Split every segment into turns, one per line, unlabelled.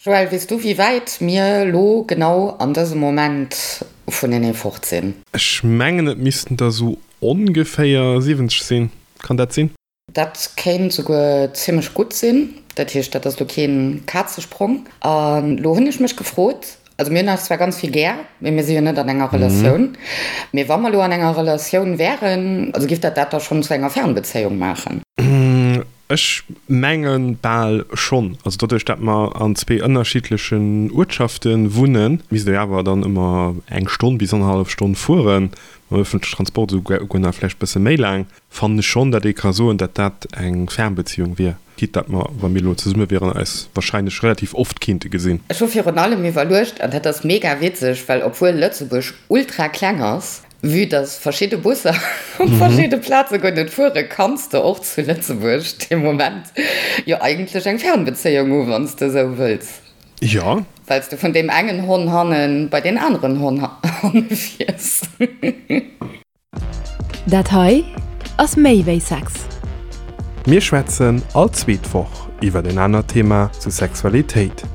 Joël, weess du wéi wäit mir lo genau an dësem Moment vunenee fort sinn?
Ech mengen et missten der sou ongeféier 70 sinn, kann dat sinn?
Dat kéint souguer zimmlech gutt sinn. Dat heescht, dat ass lo keen Kazesprong. An lo hunn ech mech gefrot, also mir hunn eis zwar ganz vill gär, mee mir si jo net an enger Relatioun. Mee wa mer lo an enger Relatioun wären, also giff dat dat da schonn zu enger Fernbezéiung maachen?
Ech menge bal schonn. Also doduerch, dat mer an zwee ënnerschiddlechen Uertschafte wunnen, misst ee awer dann ëmmer eng Stonn bis annerhallef Stonn fueren, mam ëffentlechen Transport esouguer nach vläicht bësse méi laang, fannen ech schonn, dat ee ka soen, dat dat eng Fernbeziehung wier. Quitte dat mer, wa mir elo zesumme wieren, eis wahrscheinlech relativ oft kinnte gesinn.
Ech hu virun allem iwwerluecht, an dat ass mega witzeg, well obwuel Lëtzebuerg ultra kleng ass, Vue dass verschidde Busser op verschidde Plaze guer net fueren, kanns de och zu Lëtzebuerg dee Moment jo eigentlech eng Fernbezéiung hu wann s de esou wëlls.
Jo.
Well s de vun deem engen Honn hanne bei deen aneren Honn hanne fiers.
Dat hei ass méi wéi Sex.
Mir schwätzen all zweet Woch iwwer en anert Thema zu Sexualitéit.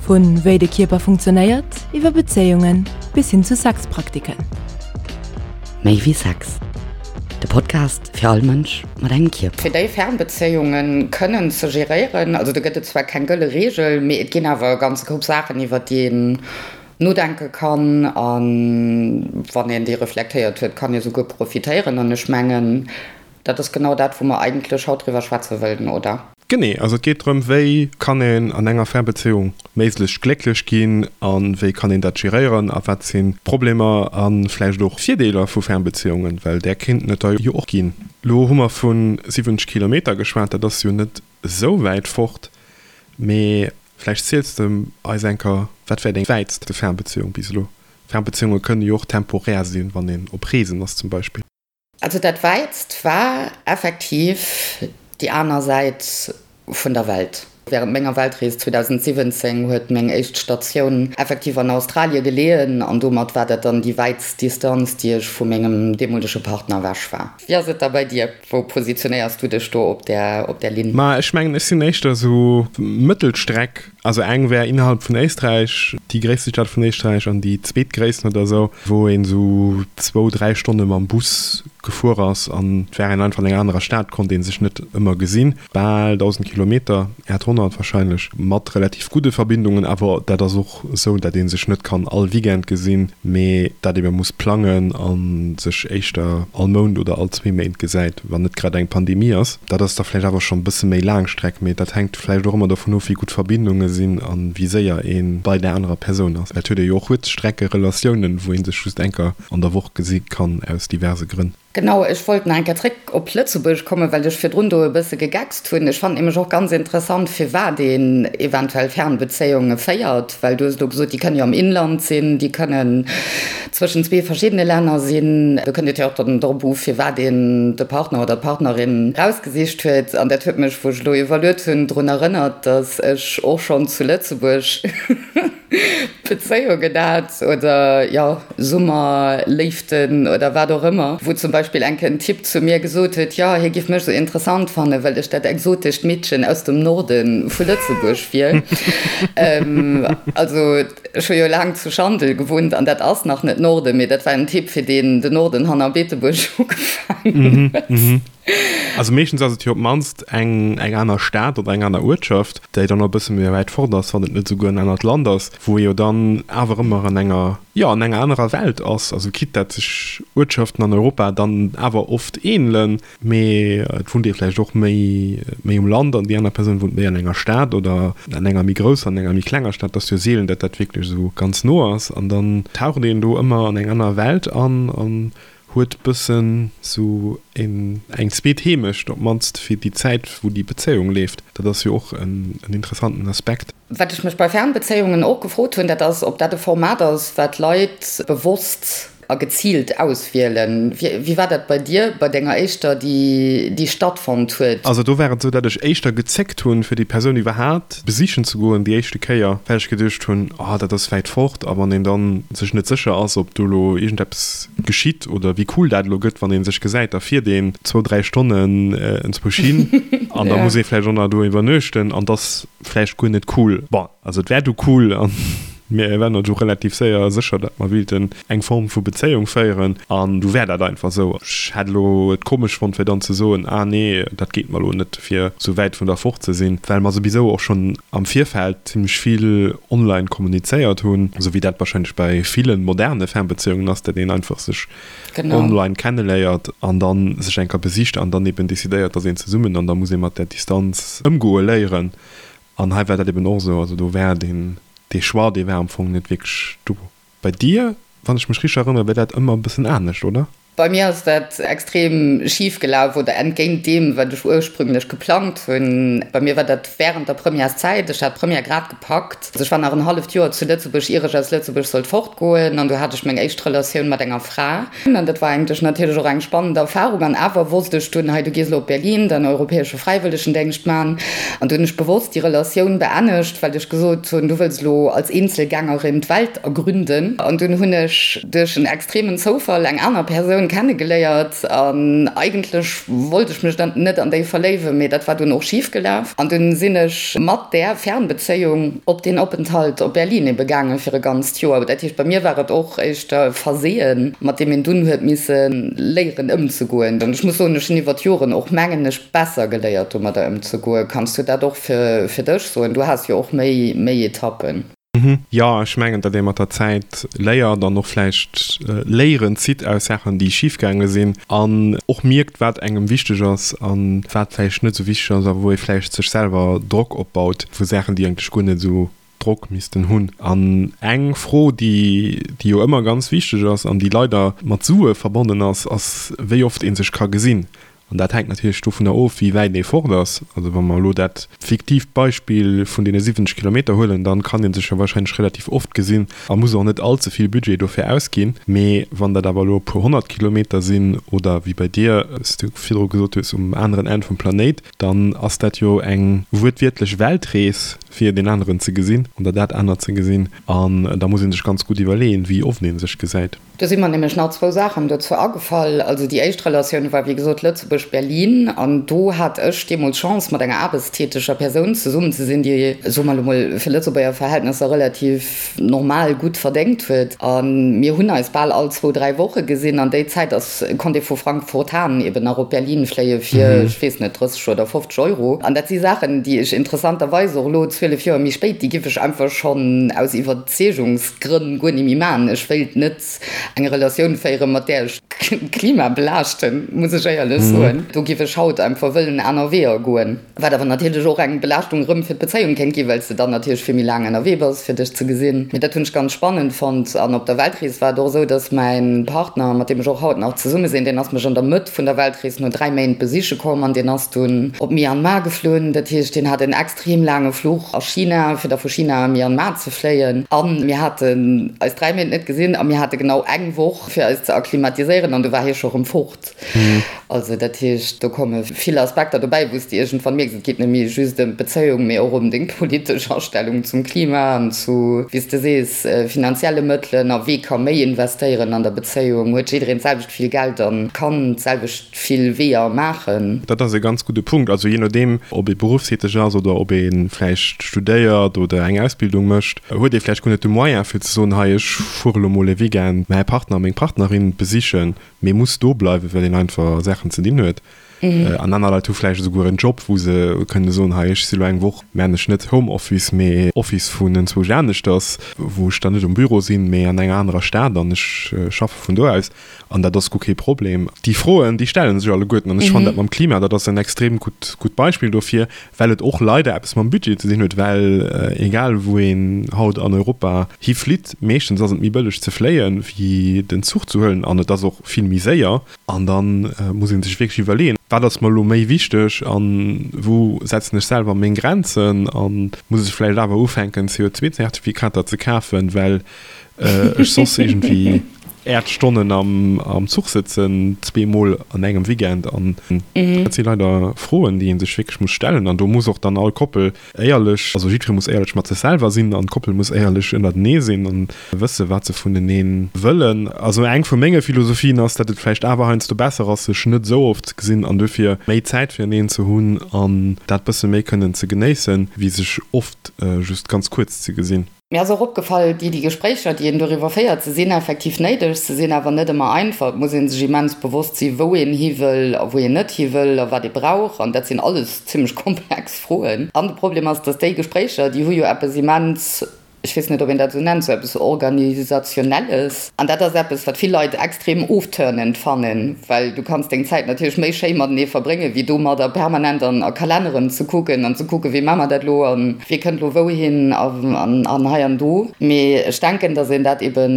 Vu wéi de Kierper funktionéiert, iwwer Bezéiungen bis hin zu Sexpraktiken.
Méi wéi Sex, de Podcast fir all Mënsch mat engem Kierper. Fir déi Fernbezéiunge kënnen ze geréieren, also do gëtt et zwar keng gëlle Reegel, mee et ginn awer e ganze Koup Saachen, iwwer déi een nodenke kann a wann een déi reflektéiert huet, kann ee souguer profitéieren. An ech mengen, Dat ass genau dat, wou mer eigentlech haut driwwer schwätze wëllen, oder?
Genee. Also et geet drëm, wéi kann een an enger Fernbezéiung méiglechst glécklech ginn a wéi kann een dat geréieren a wat sinn d'Problemer a vläicht och Virdeeler vu Fernbezéiungen, well där kéinten et der jo och ginn. Elo hu mer vu 70 Kilometer geschwat, dat ass jo net esou wäit fort, mee vläicht ziels de eis eng Kéier, wat war deng wäitste Fernbezéiung bis elo? Fernbezéiunge kënne jo och temporär sinn, wann een op Reesen ass zum Beispill.
Also dat wäitst war effektiv déi aner Säit vun der Welt. Während menger Weltrees 2017 huet meng éischt Statioun effektiv an Australie geleeën an domat war dat dann déi wäitst Distanz, déi ech vu mengem deemolege Partner ewech war. Wéi ass et da bei dir? Wou positionéiers du dech do op där op där Linn?
Ma ech mengen, ech sinn éischter esou Mëttelstreck. Also eng wär innerhalb vun Éisträich, déi gréisste Stad vun Éisträich an déi zweetgréissten oder esou, wou een esou zwou, dräi Stonne mam Bus gefuer ass an et war een einfach an enger anerer Stad, konnt ee sech net ëmmer gesinn. Bal 1.000 Kilometer, 800 wahrscheinlech, mat relativ gudde Verbindungen, awer dat ass och esou, dat ee sech net kann all Weekend gesinn, mee dat ebe muss plangen a sech éischter all Mount oder all zwee Méint gesäit, wann net grad eng Pandemie ass. Dat ass da vläicht awer schonn e bësse méi laang Streck, mee dat hänkt vläicht och ëmmer dovun of, wéi gutt d'Verbindunge sinn a wéi séier ee bei där anerer Persoun ass. Et huet ee jo och Kuerzstreckerelatiounen, wou ee sech just eng Kéier an der Woch gesi kann, aus diverse Grënn.
Genau, ech wollt nach eng Kéier zréck op Lëtzebuerg kommen, well ech virdrun do e bësse gegeckst hunn. Ech fannen nämlech och ganz interessant, firwat een eventuell Fernbezéiunge féiert, well du hues elo gesot, déi kënne jo am Inland sinn, déi kënnen zwëschen zwee verschiddene Länner sinn. Do kënnt et jo och dann drop u, firwat een de Partner oder d'Partnerin rausgesicht huet. An dat huet mech, wou ech elo iwwerluet hunn, drun erënnert, datt ech och schonn zu Lëtzebuerg Bezéiungen hat oder, jo, Summerléiften oder wat och ëmmer, wou zum Beispill eng Kéier en Typ zu mir gesot huet, jo, hie giff mech sou interessant fannen, well ech dat exotescht Meedchen aus dem Norde vu Lëtzebuerg wier. Also, ech hu jo laang zu Schandel gewunnt an dat ass nach net Norden, mee dat war en Typ, fir deen den Norden hanner Beetebuerg ugefaangen huet.
Also meeschtens ass et jo op d'mannst eng eng aner Stad oder eng aner Uertschaft, déi dann och e bësse méi wäit fort ass, wann et net esouguer en anert Land ass, wou ee jo dann awer ëmmer an enger, jo, an enger anerer Welt ass. Also quitte dat sech Uertschaften an Europa dann awer oft ähnelen, mee et wunnt ee vläicht och méi méi um Land an déi aner Persoun wunnt méi an enger Stad oder an enger méi grousser, an enger méi klenger Stad. Et ass jo seelen, dat dat wierklech esou ganz no ass an dann taucht een do ëmmer an eng aner Welt an an Huet bëssen sou een eng zweet Heemecht, op mannst fir déi Zäit wou déi Bezéiung leeft. Dat ass jo och en interessanten Aspekt.
Wat ech mech bei Fernbezéiungen och gefrot hunn, dat ass, ob dat e Format ass, wat Leit bewosst. a geziilt auswielen. Wéi war dat bei dir, bei denger éischter, déi déi stattfonnt huet?
Also do war et esou, dat ech éischter gezéckt hunn, fir déi Persoun iwwerhaapt besichen ze goen déi éischte Kéier, well ech geduecht hunn, oh dat ass wäit fort a wann een dann sech net sécher ass, ob do elo iergendeppes geschitt oder wéi cool dat elo gëtt, wann ee sech gesäit, da fiert een zwou, dräi Stonnen enzwousch hin an da muss ee vläicht och nach do iwwernuechten an 't ass vläicht guer net cool. Bon, also et wär du cool an mir waren du relativ séier sécher, datt mer wéilten eng Form vu Bezéiung féieren an du wär dat einfach esou. Ech hätt elo et komesch fonnt fir dann ze soen, ah nee, dat geet mer elo net, fir esou wäit vun der fort ze sinn, well mer souwisou och schonn am Virfeld zimmlech vill online kommunizéiert hunn, esou wéi dat wahrscheinlech bei ville moderne Fernbezéiungen ass, datt een einfach sech online kenneléiert an dann sech eng Kéier besicht an dann eben decidéiert, dass een zesummen an da muss ee mat där Distanz ëmgoe léieren. An hei war dat eben och esou. Also do war deen, dee Choix, dee war am Fong net wierklech do. Bei dir, wann ech mech richteg erënnere, war dat ëmmer e bëssen anescht, oder?
Bei mir ass dat extrem schif gelaf oder entgéint deem, wat ech ursprünglech geplangt hunn. Bei mir war dat wärend der Premièreszäit. Ech hat d'Première grad gepackt. Also ech war nach en halleft Joer zu Lëtzebuerg, ier ech aus Lëtzebuerg sollt fortgoen. An du hat ech meng éischt Relatioun mat enger Fra. An dat war eigentlech natierlech och eng spannend Erfarung. An awer wosst ech dunn, hei du gees elo op Berlin, däin europäesche Fräiwëllegendéngscht man. An du hunn ech bewosst déi Relatioun beennegt, well ech gesot hunn, du wëlls elo als Eenzelgängerin d'Welt ergründen. An dunn hunn ech duerch en extremen Zoufall eng aner Persoun kennegeléiert. An eigentlech wollt ech mech dann net an déi verléiwen, mee dat war dunn och schif gelaf. An dunn sinn ech mat där Fernbezéiung op deen Openthalt op Berlin ebe gaangen fir e ganzt Joer. Dat heescht, bei mir war et och éischter e Verseeën, mat deem een dunn huet misse léieren ëmzegoen. An ech muss soen, ech hunn iwwer d'Joren och, mengen ech, besser geléiert domadder ëmzegoen. Kanns du dat och fir dech soen? Du has jo och méi méi Etappen.
Jo, ech mengen, datt ee mat der Zäit léiert an och vläicht Léieren zitt aus Saachen, déi schif gaange sinn an och mierkt, wat engem wichteg ass a wat vläicht net esou wichteg ass a wou ee vläicht sech selwer Drock opbaut vu Saachen, déi eigentlech guer net esou Drock missten hunn. An eng Fro, déi déi jo ëmmer ganz wichteg ass an déi leider mat Sue verbonnen ass, ass, wéi oft ee sech ka gesinn. An dat hänkt natierlech dovunner of, wéi wäit ee fort ass. Also wa mer elo dat fiktiivt Beispill vun deene 70 Kilometer huelen, dann kann ee sech jo wahrscheinlech relativ oft gesinn a muss och net all ze vill Budget dofir ausginn. Mee wann dat awer elo e puer 100 Kilometer sinn oder wéi bei dir, wéi s du virdru gesot hues, um aneren Enn vum Planéit, dann ass dat jo eng wuertwiertlech Weltrees, fir deen aneren ze gesinn oder dat anert ze gesinn. An da muss ee sech ganz gutt iwwerleeën, wéi oft ee sech gesäit.
Do si mer nämlech nach zwou Saachen dozou agefall. Also déi éischt Relatioun war, wéi gesot, Lëtzebuerg-Berlin. An do hat ech deemools Chance, mat enger aarbechtstäteger Persoun zesummen ze sinn, déi, soe mer elo mol, fir Lëtzebuerger Verhältnesser relativ normal gutt verdéngt huet. A mir hunn eis bal all zwou, dräi Woche gesinn. An déi Zäit ass konnt ee vu Frankfurt-Hahn eben nach op Berlin fléie fir, ech weess net, 30 oder 50 Euro. An dat si Saachen, déi ech interessanterweis och elo, 12 Joer méi spéit, déi giff ech einfach schonn aus Iwwerzeegungsgrënn guer ni méi maachen. Ech wéilt net eng Relatioun féieren, mat där ech d'Klima belaaschten, muss ech éierlech soen. Do giff ech haut einfach wëllen aner Weeër goen. Wat awer natierlech och eng Belaaschtung erëm fir d'Bezéiung kéint ginn, well s de dann natierlech vill méi laang ënnerwee bass, fir dech ze gesinn. Mee dat hunn ech ganz spannend fonnt. An op der Weltrees war et och esou, dass mäin Partner, mat deem ech och haut nach zesumme sinn, deen ass mech an der Mëtt vun der Weltrees no 3 Méint besiche komm an deen ass dunn op Myanmar geflunn. Dat heescht, deen hat en extrem laange Fluch a China, fir da vu China a Myanmar ze fléien. A mir haten eis 3 Méint net gesinn a mir hate genau eng Woch, fir eis ze akklimatiséieren an du war hie scho rëm fort. Also dat heescht, do komme vill Aspekter dobäi, wou s de iergendwann mierks, et geet net méi just ëm d'Bezéiung, mee och ëm deng politesch Astellung zum Klima an zu, wéi s de sees, finanzielle Mëttelen a wee ka méi investéieren an der Bezéiung. Huet jiddereen d'selwecht vill Geld a kann d'selwecht vill Weeër maachen?
Dat ass e ganz gudde Punkt. Also jee nodeem, ob ee beruffstäteg ass oder ob ee vläicht studéiert oder eng Ausbildung mécht, huet ee vläicht guer net de Moyen fir ze soen, hei ech fuere lo mol e Weekend mäi Partner, meng Partnerin besichen. Mee muss do bleiwen, well een einfach Saachen ze dinn huet. An aner Leit hu vläicht esouguer en Job, wou se kënne soen, hei ech si lo eng Woch, mä ech net Homeoffice, mee Office vun enzwousch aneschters, wou ech dann net um Büro sinn, mee an enger anerer Stad an ech schaffe vun do aus. An dat ass guer kee Problem. Déi Froen, déi stelle sech alleguerten. An ech fannen dat mam Klima, dat ass en extrem gutt, gutt Beispill dofir, well et och leider eppes mam Budget ze dinn huet, well egal wou een haut an Europa hiflitt, meeschtens ass et méi bëlleg ze fléien, wéi den Zuch ze huelen an et ass och vill méi séier. An da muss ee sech wierklech iwwerleeën, wat ass mer elo méi wichteg a wou setzen ech selwer meng Grenzen a muss ech vläicht awer ufänken CO2-Zertifikater ze kafen, well ech soss iergendwéi. Äert Stonnen am Zuch sëtzen, zweemol an engem Weekend. An dat si leider Froen, déi ee sech wierklech muss stellen. An do muss och dann all Koppel éierlech, also jiddweree muss éierlech mat sech selwer sinn an d'Koppel muss éierlech ënnertenee sinn an wësse wat se vunenee wëllen. Also eng vu menge Philosophien ass, datt et vläicht awer heiansdo besser ass, sech net esou oft ze gesinn an dofir méi Zäit fireneen ze hunn an dat bësse méi kënnen ze genéissen, wéi sech oft just ganz kuerz ze gesinn.
Mir ass och opgefall, déi déi Gespréicher, déi een doriwwer féiert, se sinn effektiv néideg, se sinn awer net ëmmer einfach. Et muss ee sech immens bewosst sinn, wou een hi wëll a wou een net hi wëll a wat ee brauch. An dat sinn alles zimmlech komplex Froen. An de Problem ass, datt déi Gespréicher, déi hu jo eppes immens, ech weess net, ob een dat esou nennt, sou eppes Organisationelles. An dat ass eppes, wat vill Leit extrem ofturnend fannen, well du kanns deng Zäit natierlech méi schéi matenee verbréngen, wéi domadder permanent an a Kalenneren ze kucken an ze kucken, wéi maache mer dat elo an Wie kënnt lo wouhin an hei an do. Mee ech denken, datt een dat ebe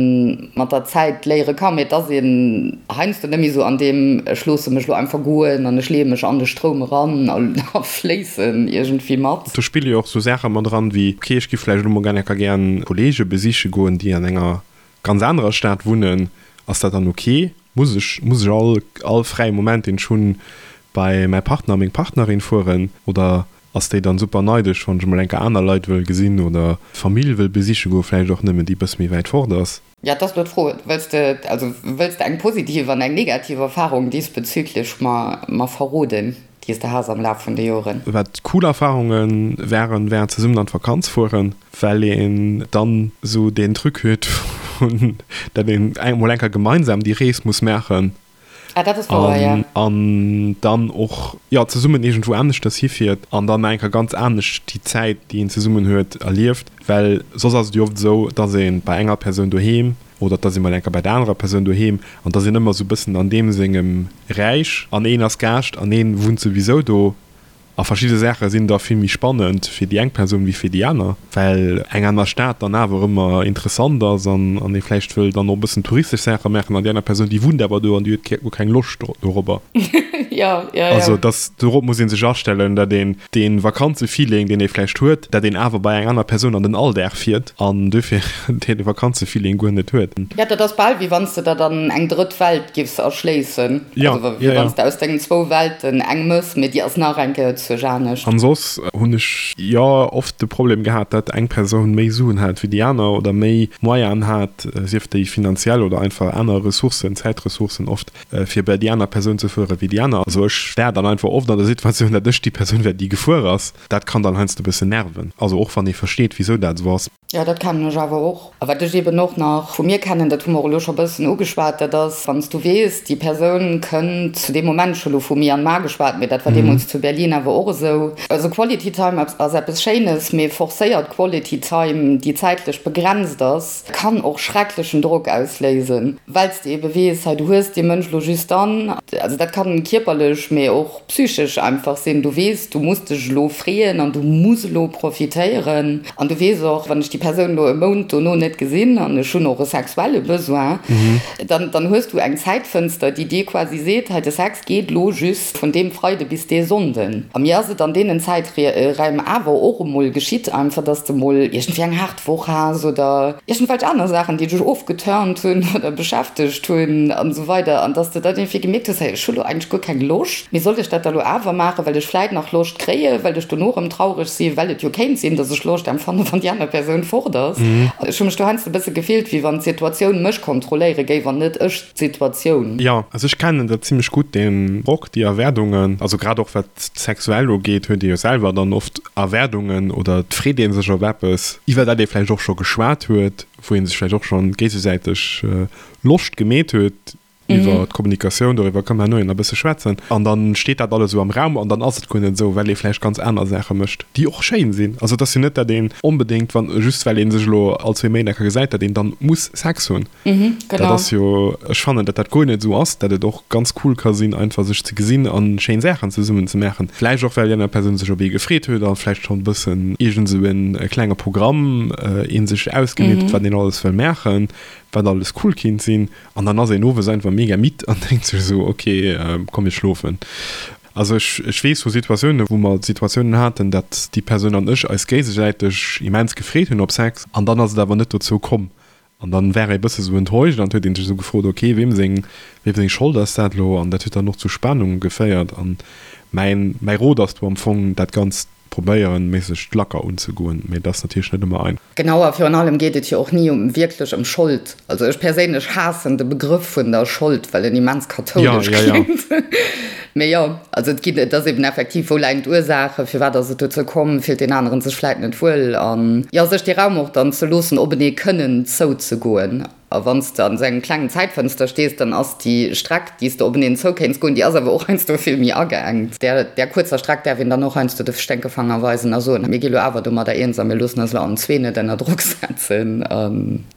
mat der Zäit léiere kann. Mee et ass een heiansdo net méi esou an deem ech loosse mech lo einfach goen an ech leeë mech an de Stroum eran a fléissen iergendwéi mat.
Do spille jo och sou Saache mat eran wéi, ok, ech giff vläicht elo mol gär enker gären Kollege besiche goen, déi an enger ganz anerer Stad wunnen. Ass dat dann ok? Muss ech, muss ech all, all fräie Moment, deen ech hunn, bei mäi Partner, meng Partnerin fueren? Oder Ass déi dann super neidesch wann ech emol enker aner Leit wëll gesinn oder Famill wëll besiche goen, vläicht och nëmmen déi bëss méi wäit fort ass?
Ja, et ass lo d'Fro, wëlls de, also wëlls de eng positiv an eng negativ Erfahrung diesbezüglich mer, mer verroden, déi s de has am Laf vun de Joren?
Wat cool Erfahrunge waren, war zesummen an d'Vakanz fueren, well een dann esou deen Truc huet vun, dat een emol enker gemeinsam déi Rees muss maachen.
Ah, dat ass wouer, ja.
An dann och, jo, zesummen iergendwou aneschters hifiert an dann nach eng Kéier ganz anescht déi Zäit, déi een zesummen huet, erlieft. Well soss ass et jo oft esou, dass ee bei enger Persoun doheem oder dass ee mol eng Kéier bei der anerer Persoun doheem an dass een ëmmer esou e bëssen an deem sengem Räich an een ass Gaascht an een wunnt souwisou do. A verschidde Saache sinn da vill méi spannend fir déi eng Persoun wéi fir déi aner, well eng aner Stad dann awer ëmmer interessant ass an ee vläicht wëll dann och e bëssen touristesch Saache maachen an déi aner Persoun, déi wunnt awer do an déi huet guer keng Loscht dorobber.
Jo, jo, jo.
Also dass, dorop muss ee sech astellen, dat een dee Vakanzefeeling, deen ee vläicht huet, dat een awer bei eng aner Persoun an den Alldag fiert an dofir dee Vakanzefeeling guer net huet.
Jo, dat ass bal wéi wann s de der dann eng drëtt Welt giffs erschléissen.
Ja,
also wéi
ja,
wann s de aus dengen zwou Welten eng mëss, mee déi ass nach eng Kéier zuerch anescht.
An soss hunn ech jo oft de Problem gehat, dat eng Persoun méi Suen hat wéi déi aner oder méi Moyenen hat, sief déi finanziell oder einfach aner Ressourcen, Zäitressourcen oft, fir bei déi aner Persoun ze fuere wéi déi aner. Also ech war dann einfach oft an der Situatioun, dat ech déi Persoun war, déi gefuer ass. Dat kann dann heiansdo e bëssen nerven. Also och wann ee versteet, wisou dat esou ass.
Jo, dat kennen ech awer och. A wat ech eben och nach vu mir kennen, dat hu mer och elo scho bëssen ugeschwat, dat ass, wann s du weess, déi Persoun kënnt zu deem Moment, ech hu elo vu Myanmar geschwat, mee dat war deemools zu Berlin awer och esou, also Quality Time ass eppes Schéines, mee forcéiert Quality Time, déi zäitlech begrenzt ass, kann och schrecklechen Drock ausléisen, well s de ebe weess, hei du hues dee Mënsch elo just dann. Also dat kann kierperlech, mee och psychesch einfach sinn, du weess, du muss dech elo freeën an du muss elo profitéieren an du weess och, wann ech déi Persoun elo e Mount dono net gesinn an ech hunn och e sexuelle Besoin, dann, dann hues du eng Zäitfënster, déi dir quasi seet, hei de Sex geet elo just vun deem Freide bis dee Sonnden. A mir ass et an deenen Zäiträim awer och emol geschitt einfach, dass de mol iergendwéi eng haart Woch has oder iergendwelch aner Saachen, déi dech ofgeturnt hunn oder beschäftegt hunn an esou weider an dass de dann iergendwéi gemierkt hues, hey, ech hu lo eigentlech guer keng Loscht, mee soll ech dat da lo awer maachen, well ech vläit nach Loscht kréien, well ech dono erëm traureg sinn, well et jo kéint sinn, dass ech Loscht empfannen, wann déi aner Persoun fort ass. Ech hu mech do heiansdo e bësse gefillt, wéi wann d'Situatioun mech kontrolléiere géif an net ech d'Situatioun.
Jo, also ech kennen dat zimlech gutt, deen Drock, déi Erwaardungen, also grad och wat d'sexuell ugeet, huet ee jo selwer dann oft Erwaardungen oder et freet ee sech op eppes, iwwer dat ee vläicht och scho geschwat huet, wou ee sech vläicht och schonn géigesäiteg Loscht gemeet huet iwwer d'Kommunikatioun, doriwwer kënne mer herno jo nach e bësse schwätzen, an da steet dat alles esou am Raum an dann ass et guer net esou, well ee vläicht ganz aner Saache mécht, déi och schéin sinn. Also et ass jo net, dat een onbedéngt, wann, just well ee sech elo all zwee Méint eng Kéier gesäit, dat een dann muss Sex hunn.
Mhm,
genau. Dat ass jo, ech fannen, datt dat guer net esou ass, datt et och ganz cool ka sinn, einfach sech ze gesinn a schéin Saachen zesummen ze maachen. Vläicht och, well déi aner Persoun sech op ee gefreet huet a vläicht schonn e bëssen iergend esou e klenge Programm ee sech ausgemeet huet, wat een alles wëll maachen, wat alles cool kinnt sinn. An dann ass een owes einfach mega midd an denkt sech esou, ok, komm mir schlofen. Also ech, ech weess vu Situatiounen, wou mer Situatiounen haten, datt déi Persoun an ech eis géigesäiteg immens gefreet hunn op Sex an dann ass et awer net dozou komm. An dann war ee bësse sou enttäuscht an huet een sech sou gefrot, ok, weem seng, weem seng Schold ass dat elo? An dat huet dann och zu Spannunge geféiert. An mäin, mäi Rot ass do am Fong, dat Ganzt probéieren, méiglechst lacker unzegoen, mee dat ass natierlech net ëmmer einfach.
Genau, a virun allem geet et jo och ni um wierklech ëm Schold. Also ech perséinlech haassen de Begrëff vun der Schold, well en immens kathoulesch kléngt. Mee jo, also et ginn, et ass eben effektiv, wou läien d'Ursaachen, firwat ass et dozou komm, fillt deen aneren sech vläit net wuel an jo, sech dee Raum och dann ze loossen, openee kënnen zouzegoen. A wann s de an esou engem klengen Zäitfënster stees, dann ass déi Streck, déi s de openeen zoukéints goen, déi ass awer och heiansdo vill méi ageengt. Där, där kuerzer Streck däerf een dann och heiansdo de Sténkefanger weisen a soen, mir gi lo awer domadder eens a mir loossen eis lo allen zwee net ënner Drock setzen.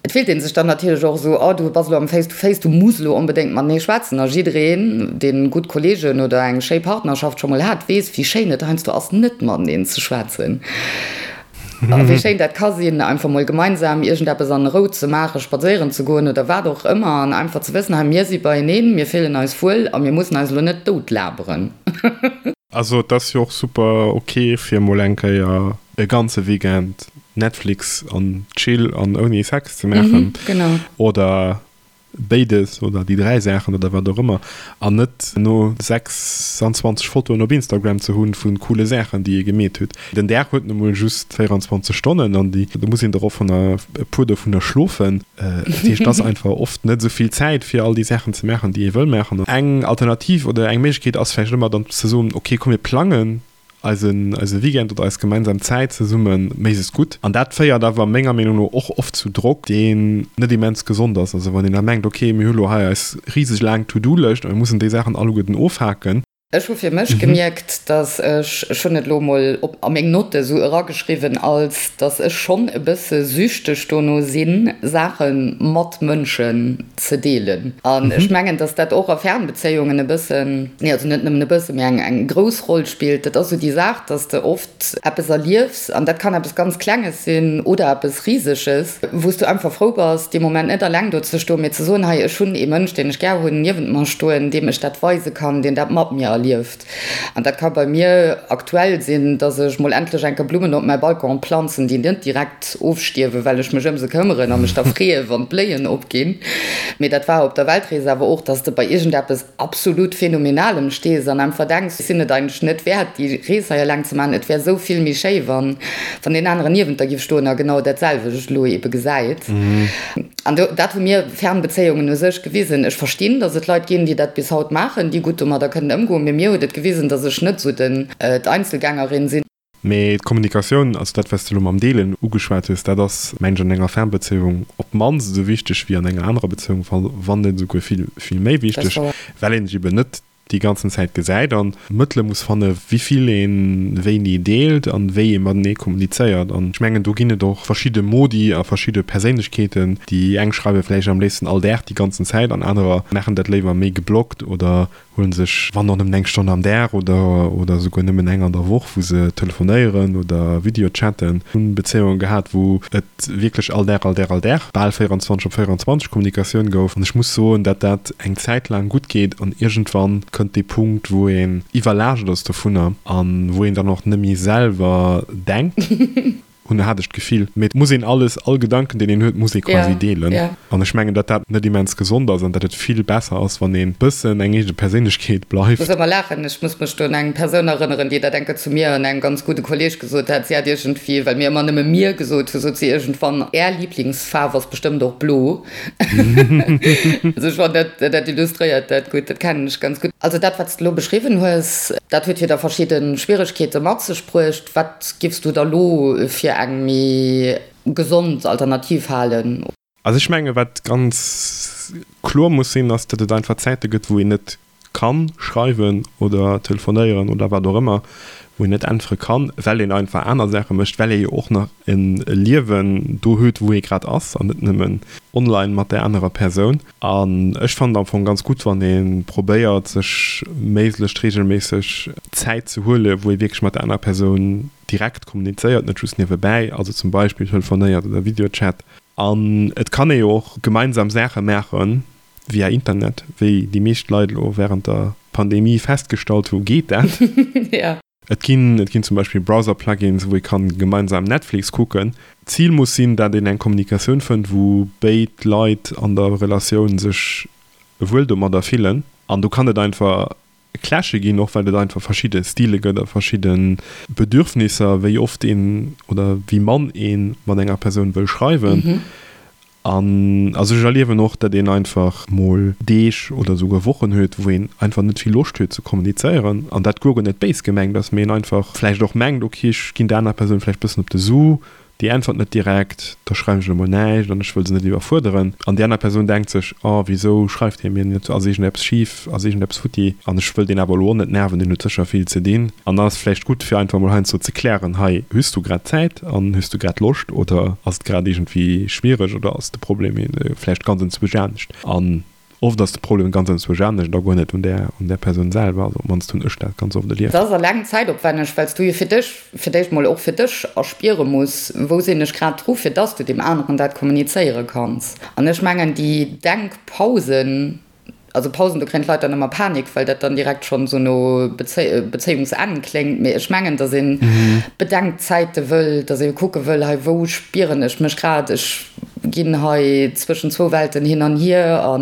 Et fillt ee sech dann natierlech och esou, oh du bass elo am Face to Face, du muss elo onbedéngt matenee schwätzen. A jiddereen, dee gutt Kolleegen oder eng schéi Partnerschaft scho mol hat, weess, wéi schéin et heiansdo ass, net mateneen ze schwätzen. A wéi schéin dat ka sinn, einfach mol gemeinsam iergendeppes an Rou ze maachen, spadséieren ze goen oder wat och ëmmer an einfach ze wëssen, hei mir si beieneen, mir fillen eis wuel a mir mussen eis elo net doutlaberen.
Also et ass jo och super ok fir mol eng Kéier e ganze Weekend Netflix an Chill an ouni Sex ze maachen oder béides oder déi 3 Saachen oder wat och ëmmer an net no 26 Fotoen op Instagram ze hunn vu coole Saachen déi ee gemeet huet. Den Dag huet nu mol just 24 Stonnen an déi do muss een der och vun e puer dovunner schlofen. Dat heescht et ass einfach oft net esou vill Zäit fir all déi Saachen ze maachen déi ee wëll maachen. Eng Alternativ oder eng Méiglechkeet ass vläicht ëmmer dann ze soen, ok komm mir plangen eisen eise Weekend oder eis gemeinsam Zäit zesumme méiglechst gutt. An dat féiert awer menger Meenung no och oft zu Drock, deen net immens gesond ass. Also wann een da mengt, ok, mir hu lo hei eis riseg laang To-Do-Lëscht a mir mussen déi Saachen alleguerten ofhaken.
Ech hu fir mech gemierkt, dass ech, ech hunn et elo emol op a meng Notte sou erageschriwwen, als dass ech schonn e bësse süchteg dono sinn, Saache mat Mënschen ze deelen. An ech mengen, dass dat och a Fernbezéiungen e bëssen, nee, also net nëmmen e bëssen, mee eng eng grouss Roll spillt. Dat ass esou déi Saach, dass de oft eppes erliefs, an dat kann eppes ganz Klenges sinn oder eppes Riseges, wou s du einfach frou bass, dee Moment net alleng do ze stoen, mee ze soen, hei, ech hunn ee Mënsch, deen ech gär hunn, niewent mer stoen, deem ech dat weise kann, deen dat mat mir erlieft. An dat ka bei mir aktuell sinn, dass ech mol endlech eng Kéier Blummen op mäi Balcon planzen, déi net direkt ofstierwen, well ech mech ëm se këmmeren a mech da freeë wann d'Bléien opginn. Mee dat war op der Weltrees awer och, dass de bei iergendeppes absolut Phänomenalem stees an einfach denks, ech sinn et eigentlech net wäert, déi Rees hei eleng ze maachen, et wär esou vill méi schéi, wann deen aneren niewent der giff stoen a genau dat selwecht elo ebe gesäit. An do, dat hu mir Fernbezéiungen u sech gewisen. Ech verstinn, datt et Leit ginn, déi dat bis haut maachen, déi gutt domadder kënnen ëmgoen, mee mir huet et gewisen, datt ech net esou den, d'Einzelgängerin sinn.
Mee d'Kommunikatioun, also dat, wat s de elo mam Deelen ugeschwat hues, dat ass, mengen ech, an enger Fernbezéiung op d'mannst esou wichteg wéi an enger anerer Bezéiung, wann net esouguer vill, vill méi wichteg, well een sech eben net déi ganzen Zäit gesäit an Mëttele muss fanne wéi vill ee wéini deelt an wéi ee matenee kommunizéiert. An ech mengen, do ginn et och verschidde Modi a verschidde Perséinlechkeeten. Déi eng schreiwe vläicht am léifsten all Dag déi ganzen Zäit an anerer maachen dat léiwer méi geblockt oder huelen sech, wann och nëmmen eng Stonn am Dag oder oder esouguer nëmmen eng an der Woch, wou se telefonéieren oder Videochatten. Hunn Bezéiunge gehat, wou et wierklech all Dag, all Dag, all Dag, bal 24 op 24 Kommunikatioun gouf. An ech muss soen, dat dat eng Zäit laang gutt geet an iergendwann kënnt dee Punkt, wou een iwwerlaascht ass dovunner an wou een dann och net méi selwer denkt. Hunn, hat ech d'Gefill. Mee et muss een alles, all Gedanken, deen een huet, muss ee quasi deelen. An ech mengen, datt dat net immens gesond ass an datt et vill besser ass, wann een bëssen eng eege Perséinlechkeet bleift.
Muss ëmmer laachen. Ech muss mech do un eng Persoun erënneren, déi dat eng Kéier zu mir an engem ganz gudde Kolleg gesot hat. Si hat iergendwéi, well mir ëmmer nëmme mir gesot hu, sot si iergendwann, Är Liblingsfaarf ass bestëmmt och blo. Also ech fannen, dat, dat illustréiert dat gutt. Dat kennen ech ganz gutt. Also dat, wat s de elo beschriwwen hues, dat huet jo da verschidde Schwieregkeete mat sech bruecht. Wat giffs du da lo fir eng méi gesond Alternativ halen?
Also ech menge wat ganz kloer muss sinn, ass datt et einfach Zäite gëtt, wou een net kann schreiwen oder telefonéieren oder wat och ëmmer, wou een net äntwere kann, well een einfach aner Saache mécht, well ee jo och nach e Liewen do huet, wou ee grad ass an net nëmmen online mat där anerer Persoun. An ech fannen et am Fong ganz gutt, wann ee probéiert, sech méiglechst reegelméisseg Zäit ze huelen, wou ee wierklech mat der anerer Persoun direkt kommunizéiert, net just niewebäi, also zum Beispill telefonéiert oder Videochat. An et kann ee jo och gemeinsam Saache maachen via Internet, wéi déi meescht Leit elo wärend der Pandemie festgestallt hu geet dat. Et ginn, et ginn zum Beispill Browser-Plugins, wou ee kann gemeinsam Netflix kucken. D'Zil muss sinn, dat een eng Kommunikatioun fënnt, wou béid Leit an der Relatioun sech wuel domadder fillen. An do kann et einfach Clashe ginn, och well et einfach verschidde Stile gëtt a verschidde Bedürfnisser, wéi oft een oder wéi mann ee mat enger Persoun wëll schreiwen. An also ech erliewen och, datt een einfach mol Deeg oder esouguer Wochen huet, wou een einfach net vill Loscht huet ze kommunizéieren an dat guer net béis gemengt ass, mee een einfach vläicht och mengt, ok, ech ginn der anerer Persoun vläicht bëssen op de Su, déi äntwert net direkt, da schreiwen ech elo mol näischt an ech wëll se net iwwerfuerderen. An déi aner Persoun denkt sech, oh wisou schreift hie mir net, ass iergendeppes schif, ass iergendeppes futti an ech wëll deen awer elo och net nerven, deen huet sécher vill ze dinn. An dann ass et vläicht gutt fir einfach mol heiansdo ze klären, hei hues du grad Zäit an hues du grad Loscht oder ass et grad iergendwéi schwiereg oder ass de Problem vläicht ganz enzwousch anescht. An Oft ass de Problem ganz enzwousch anescht a guer net un där, un där Persoun selwer. Also op d'mannst hunn ech dat ganz oft erlieft.
Et ass eleng zäitopwänneg, well s du jo fir dech, fir d'éischt mol och fir dech erspiere muss, wou sinn ech grad dru, fir dass du deem aneren dat kommunizéiere kanns. An ech mengen, déi Denkpausen, also Pausen, do kréien d'Leit dann ëmmer Panik, well dat dann direkt schonn esou no Bezéiungsenn kléngt, mee ech mengen, dass ee Bedenkzäite wëll, dass ee kucke wëll, hei wou spieren ech mech grad, ech ginn hei zwëschen zwou Welten hin an hier a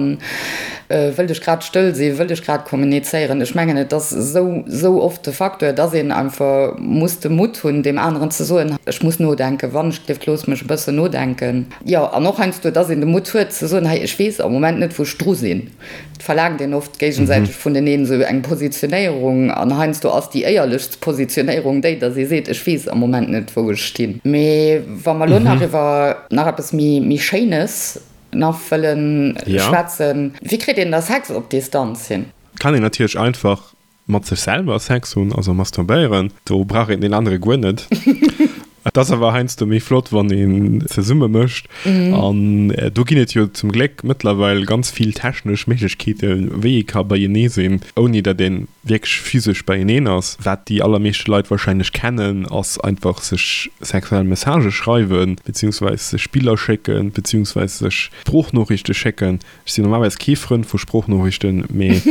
wëllt ech grad stëll sinn, wëllt ech grad kommunizéieren. Ech mengen, et ass esou, esou oft de Facteur, dass een einfach muss de Mutt hunn, deem aneren ze soen, ech muss nodenken, wann ech dierft, looss mech e bëssen nodenken. Jo, an och heiansdo, dass een de Mutt huet ze soen, hei, ech weess am Moment net, wou ech dru sinn. Et verlaangt een oft géigesäiteg vuneneen esou eng Positionéierung an heiansdo ass déi éierlechst Positionéierung déi, datt ee seet, ech weess am Moment net, wou ech stinn. Mee wa mer elo nach iwwer nach eppes méi méi Schéines nach wëlle schwätzen, wéi kritt een da Sex op Distanz hin?
Kann een natierlech einfach Mat sech selwer Sex hunn, also masturbéieren, do brauch een deen anere guer net. Et ass awer heiansdo méi flott, wann een zesumme mécht. An do ginn et jo zum Gléck mëttlerweil ganz vill technesch Méiglechkeeten, wéi ee ka beienee sinn, ouni datt ee wierklech physesch beieneen ass. Wat déi allermeeschte Leit warscheinlech kennen, ass einfach sech sexuell Messagë schreiwen, beziehungsweis sech Biller schécken, beziehungsweis sech Sproochnoriichte schécken. Ech sinn normalerweis kee Frënd vu Sproochnoriichten, mee.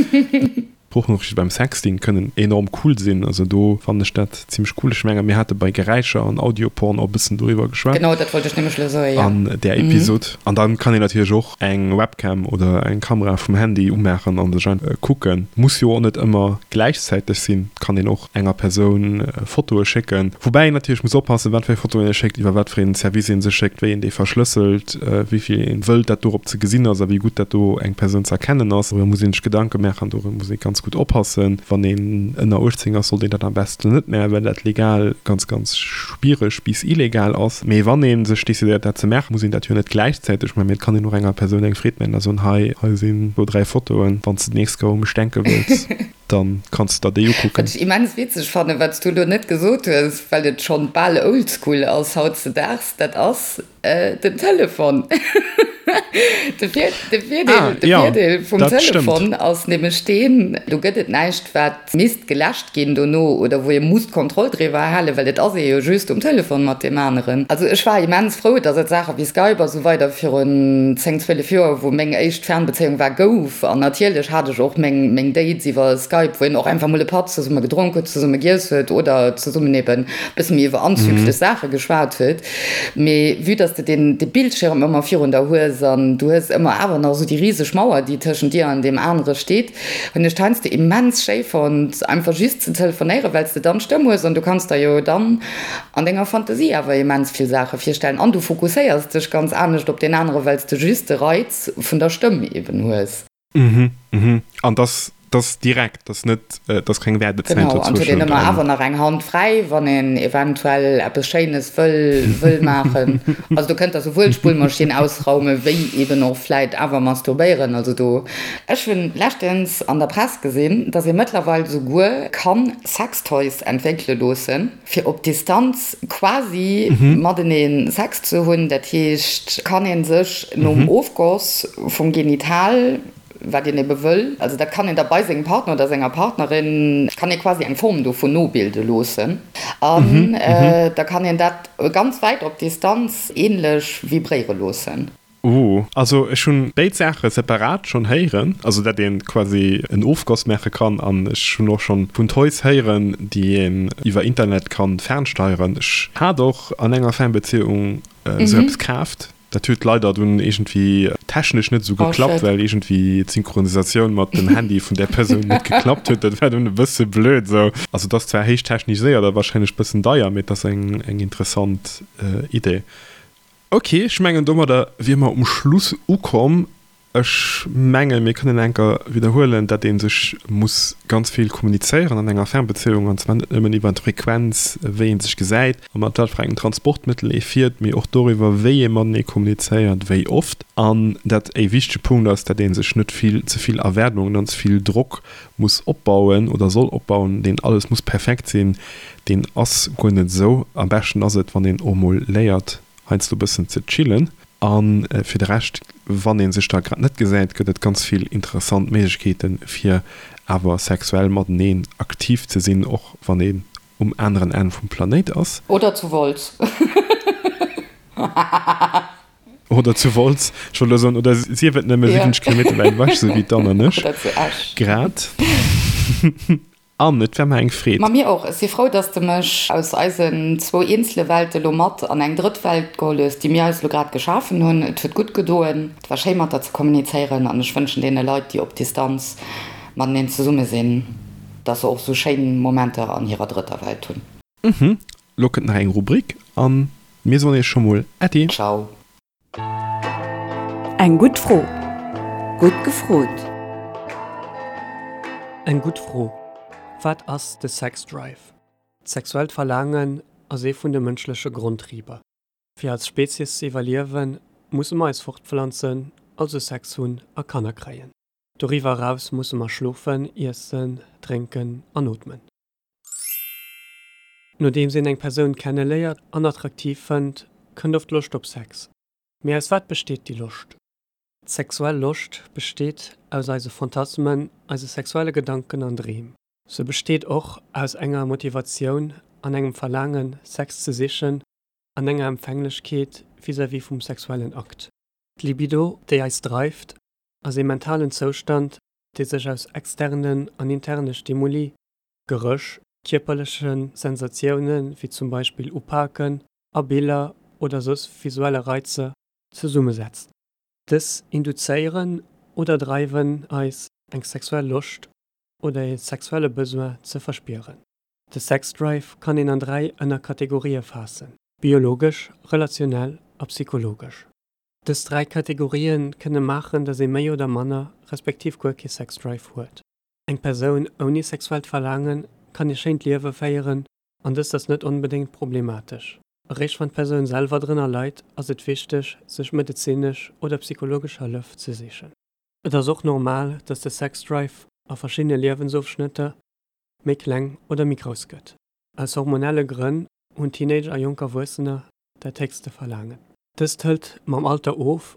Sproochnooriichte beim Sexting kënnen enorm cool sinn, also do fannen ech dat zimmlech cool. Ech menge mir hate bei Geräischer an Audioporn och e bëssen doriwwer geschwat.
Genau, dat wollt ech nämlech elo soen, jo.
An där Episod. An dann kann een natierlech och eng Webcam oder eng Kamera vum Handy umaachen an sech einfach kucken. Muss jo och net ëmmer gläichzäiteg sinn, kann een och enger Persoun Fotoe schécken, woubäi een natierlech muss oppassen, wat fir Fotoen ee schéckt, iwwer wat fir een Service ee se schéckt, wéi een déi verschlësselt, wéi vill een wëllt, dat dorop ze gesinn ass a wéi gutt dat do eng Persoun ze erkennen ass. Doriwwer muss een sech Gedanke maachen, doriwwer muss ee ganz gutt oppassen. Wann een ënner 18 ass, sollt een dat am beschten net maachen, well dat legal ganz, ganz schwiereg bis illegal ass. Mee wann ee sech decidéiert, dat ze maachen, muss een dat jo net gläichzäiteg maachen, mee et kann een och enger Persoun eng Freed maachen a soen, Hei, hei sinn do 3 Fotoen, wann s de d'nächst Kéier u mech denke wëlls. Dann kanns de der déi ukucken.
Wat ech immens witzeg fannen, wat s du elo net gesot hues, well et schonn bal oldschool ass hautzedaags, dat ass den Telefon. De Virdeel vum Telefon ass nämlech deen, do gëtt et näischt, wat misst geläscht ginn dono oder wou ee muss d'Kontroll driwwer halen, well et ass ee jo just um Telefon mat deem aneren. Also ech war immens frou, datt et Saache wéi Skype a sou weider virun 10, 12 Joer, wou meng éischt Fernbezéiung war, gouf. An natierlech hat ech och meng meng Dates iwwer Skype, wou een och einfach mol e Patt zesumme gedronk huet, zesumme giess huet oder zesummen eben e bësse méi iwwer anzüglech Saache geschwat huet. Mee vue dass de deen de Bildschirm ëmmer virun der hues an du hues ëmmer awer nach esou déi riseg Mauer, déi tëschent dir an deem anere steet, hunn ech d'heiansdo immens schéi fonnt, einfach just ze telefonéieren, well s de dann d'Stëmm hues an du kanns der jo dann an denger Fantasie awer immens vill Saache virstellen an du fokusséiers dech ganz anescht op deen anere, well s de just de Reiz vun der Stëmm eben hues.
Mhm, mhm. An dass dass direkt, dass net, dass keng Waardezäit
Genau, an et huet een dozwëschent ëmmer an. awer nach eng Hand fräi, wann een eventuell eppes Schéines wëll wëll maachen. Also do kënnt der souwuel d'Spullmaschinn ausraume wéi eben och vläit awer masturbéieren. Also do. Ech hunn leschtens an der Press gesinn, dass ee mëttlerweil souguer kann Sextoys entwéckele loossen, fir op Distanz quasi matenee Sex ze hunn. Dat heescht, kann ee sech nom Ofgoss vum Genital, wat een ebe wëll, also dat kann een da bei sengem Partner oder senger Partnerin, kann ee quasi eng Form dovun nobilde loossen an da kann een dat ganz wäit op Distanz ähnlech vibréiere loossen.
Ooh, also ech hunn béid Saache separat schonn héieren, also dat een quasi en Ofgoss maache kann an ech hunn och schonn vun Toys héieren déi een iwwer Internet kann fernsteieren. Ech hat och an enger Fernbeziehung esou eppes kaaft, dat huet leider dunn iergendwéi technesch net esou geklappt, well iergendwéi d'Synchronisatioun mat dem Handy vun där Persoun net geklappt huet, dat war dunn e bësse blöd esou. Also et ass zwar héich techniséiert a wahrscheinlech bëssen deier, mee et ass eng interessant Idee. Ok, ech mengen domadder wier mer um Schluss ukomm. Ech menge mir kënnen enker widderhuelen, dat ee sech muss ganz vill kommunizéieren an enger Fernbezéiung, an zwar net nëmmen iwwer d'Frequenz, wéi ee sech gesäit a mat wat fir engem Transportmëttel ee fiert, mee och doriwwer, wéi ee matenee kommunizéiert, wéi oft. An dat e wichtege Punkt ass, dat ee sech net vill ze vill Erwaardungen an ze vill Drock muss opbauen oder soll opbauen, deen alles muss perfekt sinn, deen ass guer net esou. Am beschten ass et, wann een och mol léiert, heiansdo e bëssen ze chillen. A fir de Rescht, wann ee sech da grad net gesäit, gëtt et ganz vill interessant Méiglechkeeten, fir awer sexuell mateneen aktiv ze sinn, och wann een um aneren Enn vum Planéit ass.
Oder zu Wolz.
Oder zu Wolz, ech wollt elo soen, oder sief et nëmme 70 Kilometer wäit ewech, sou wéi d'Anne an ech
Oder zu Esch.
grad. Anne, et war mer eng Freed.
Ma mir och. Ech si frou, dass de mech aus eisen zwou eenzele Welte lo mat an eng drëtt Welt geholl hues, déi mir eis elo grad geschafen hunn. Et huet gutt gedoen. Et war schéi mat der ze kommunizéieren an ech wënschen deene Leit, déi op Distanz mateneen zesumme sinn, dass se och sou schéin Momenter an hirer drëtter Welt hunn.
Mhm, lo kënnt nach eng Rubrik an mir soen iech scho mol Äddi.
Ciao.
Eng gutt Fro. Gutt gefrot.
Eng gutt Fro, Wat ass de Sex Drive? D'sexuellt Verlaangen ass ee vun de mënschleche Grondtriber. Fir als Spezies ze iwwerliewen, musse mer eis fortpflanzen, also Sex hunn a Kanner kréien. Doriwwer eraus musse mer schlofen, iessen, drénken an ootmen. Nodeems een eng Persoun kenneléiert an attraktiv fënnt, kënnt oft Loscht op Sex. Mee aus wat besteet déi Loscht? D'sexuell Loscht besteet aus eise Phantasmen, eise sexuelle Gedanken an Dreem. Se besteet och aus enger Motivatioun an engem Verlaangen, Sex ze sichen an enger Empfänglechkeet vis-à-vis vum sexuellen Akt. D'Libido, déi eis dreift, ass ee mentalen Zoustand, dee sech aus externen an interne Stimuli, Geréch, kierperleche Sensatioune wéi zum Beispill Upaken a Biller oder soss visuelle Reizer zesummesetzt. Dës induzéieren oder dreiwen eis, eng sexuell Loscht oder ee sexuelle Besoin ze verspieren. De Sexdrive kann een an 3 Ënnerkategorië faassen, biologesch, relationell a psychologesch. Dës 3 Kategorië kënne maachen, datt ee méi oder manner, respektiv guer kee Sexdrive huet. Eng Persoun ouni sexuellt Verlaange kann ee schéint Liewe féieren an dëst ass net onbedéngt problematesch. Eréischt wann d'Persoun selwer drënner leit, ass et wichteg, sech medezinesch oder psychologesch Hëllef ze sichen. Et ass och normal, dass de Sexdrive a verschiddene Liewensofschnëtter méi kleng oder méi grouss gëtt. Aus hormonelle Grënn hunn Teenager a jonk Erwuessener dat héchste Verlaangen. Dëst hëlt mam Alter of,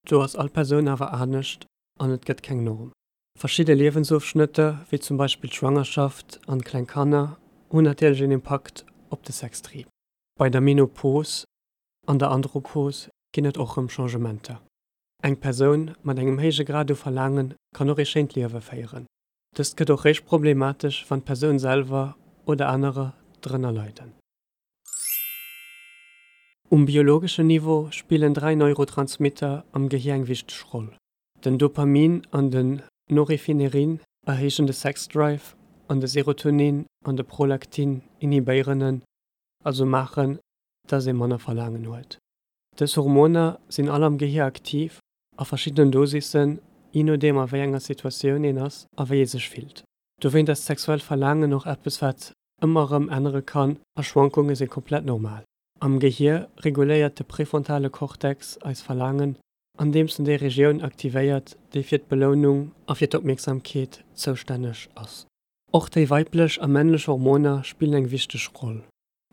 do ass all Persoun awer anescht an et gëtt keng Norm. Verschidde Liewensofschnëtter, wéi zum Beispill d'Schwangerschaft an kleng Kanner, hunn natierlech een Impakt op de Sextrieb. Bei der Menopos an der Andropos ginn et och rëm Changementer. Eng Persoun mat engem héije Grad u Verlaange kann och ee schéint Liewe féieren. Dëst gëtt och réischt problematesch, wann d'Persoun selwer oder anerer drënner leiden. Um biologeschen Niveau spillen 3 Neurotransmitter am Gehier eng wichteg Roll. Den Dopamin an den Norephinerin erhéijen de Sexdrive an de Serotonin an de Prolaktin inhibéieren en, also maachen, dass ee manner Verlaangen huet. Dës Hormoner sinn all am Gehier aktiv, a verschiddenen Dosissen, jee nodeem a wéi enger Situatioun een ass a wéi ee sech fillt. Dowéint ass d'sexuellt Verlaangen och eppes wat ëmmer erëm ännere kann a Schwankunge si komplett normal. Am Gehier reguléiert de prefrontale Cortex eis Verlaangen andeems en déi Regioun aktivéiert, déi fir d'Belounung a fir d'Opmierksamkeet zoustänneg ass. Och déi weiblech a männlech Hormoner spillen eng wichteg Roll.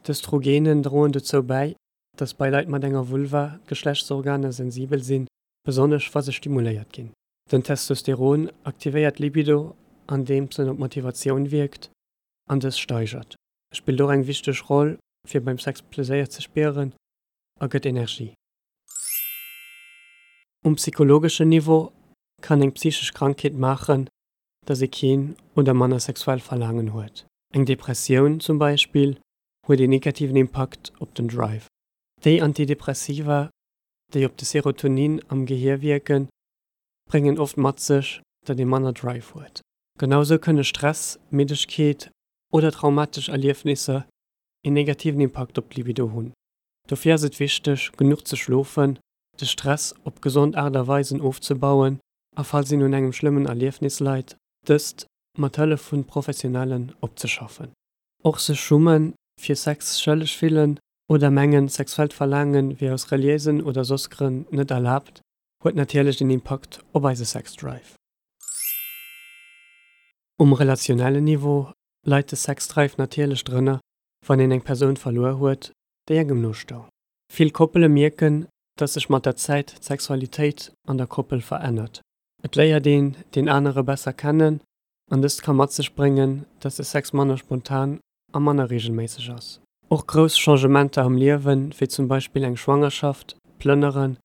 D'Östrogenen droen dozou bäi, dass bei Leit mat enger Vulva d'Geschlechtsorganer sensibel sinn, besonnesch wa se stimuléiert ginn. Den Testosteron aktivéiert d'Libido, andeems en op d'Motivatioun wierkt an dës steigert. E spillt och eng wichteg Roll, fir beim Sex Pleséier ze spieren a gëtt Energie. Um psychologeschen Niveau kann eng psychesch Krankheet maachen, dass ee keen oder manner sexuell Verlaangen huet. Eng Depressioun zum Beispill huet een negativen Impakt op den Drive. Déi Antidepressiva, déi op de Serotonin am Gehier wierken, bréngen oft mat sech, datt ee manner Drive huet. Genau sou kënne Stress, Middegkeet oder traumatesch Erliefnisser een negativen Impakt op d'Libido hunn. Dofir ass et wichteg, genuch ze schlofen, de Stress op gesond Aart a Weisen ofzebauen a falls een un engem schlëmmen Erliefnis leit, dëst mat Hëllef vun Professionellen opzeschaffen. Och sech schummen, fir Sex schëlleg fillen oder mengen, sexuellt Verlaangen wier aus reliéisen oder soss Grënn net erlaabt, huet natierlech een Impakt op eise Sexdrive. Um relationellen Niveau leit de Sexdrive natierlech drënner, wann een eng Persoun verluer huet, déi engem no stoung. Vill Koppele mierken, dass sech mat der Zäit d'Sexualitéit an der Koppel verännert. Et léiert een deen anere besser kennen an dëst ka mat sech bréngen, dass de Sex manner spontan a manner reegelméisseg ass. Och grouss Changementer am Liewen, wéi zum Beispill eng Schwangerschaft, Plënneren,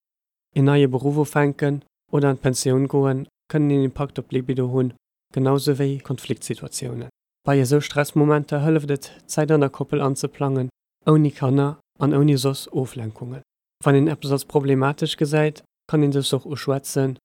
een neie Beruff ufänken oder an d'Pensioun goen, kënnen een Impakt op d'Libido hunn, genau sou wéi Konfliktsituatiounen. Bei esou Stressmomenter hëlleft et, Zäit an der Koppel anzeplangen, ouni Kanner an ouni soss Oflenkungen. Wann een eppes als problematesch gesäit, kann een dëst och uschwätzen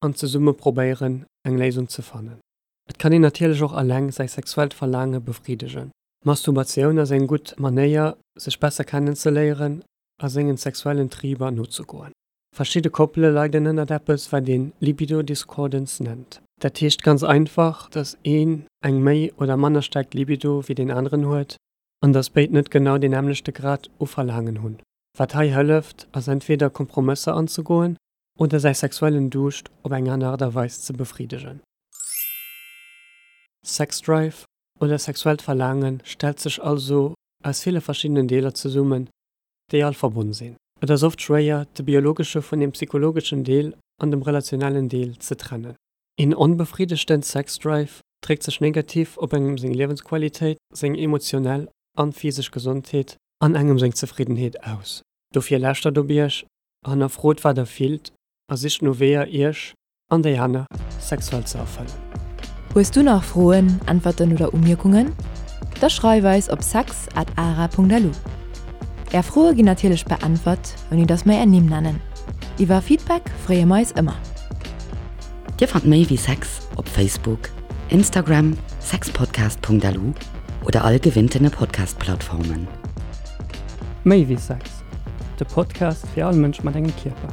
an zesumme probéieren, eng Léisung ze fannen. Et kann een natierlech och eleng säi sexuellt Verlaange befriddegen. Masturbatioun ass eng gutt Manéier, sech besser kennenzeléieren a sengen sexuellen Triber nozegoen. Verschidde Koppele leiden ënnert eppes, wat een Libido Discordance nennt. Dat heescht ganz einfach, dass een eng méi oder manner staark Libido wéi deen aneren huet an dass béid net genau deen nämmlechte Grad u Verlaangen hunn. Wat hei hëlleft, ass entweder Kompromësser anzegoen oder säi sexuellen Duuscht op eng aner Aart a Weis ze befriddegen. Sexdrive oder sexuellt Verlaange stellt sech also aus ville verschiddenen Deeler zesummen, déi all verbonn sinn. Et ass oft schwéier, de biologesche vun dem psychologeschen Deel an dem relationellen Deel ze trennen. Een onbefriddegten Sexdrive dréckt sech negativ op engem seng Liewensqualitéit, seng emotionell an physesch Gesondheet an engem seng Zefriddenheet aus. Dofir lauschtert op iech, hannerfrot wat der fillt a sicht no Weeër iech an déi aner sexuell ze erfëllen.
Hues du nach Froen, Äntwerten oder Umierkungen? Da schreif eis op sex at ara.lu. Är Froe ginn natierlech beäntwert, ouni dass mer är Nimm nennen. Iwwer Feedback freeë mer eis ëmmer.
Dir fannt méi wéi Sex op Facebook, Instagram, sexpodcast.lu oder all gewinntene Podcast-Plattformen.
Méi wéi Sex, de Podcast fir all Mënsch mat engem Kierper.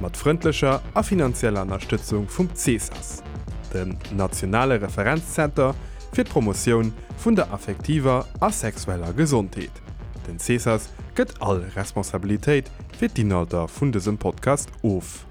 Mat frëndlecher a finanzieller Ënnerstëtzung vum CESAS, dem nationale Referenzzenter fir d'Promotioun vun der affektiver a sexueller Gesondheet. Den CESAS gëtt all Responsabilitéit fir d'Inhalter vun dësem Podcast of.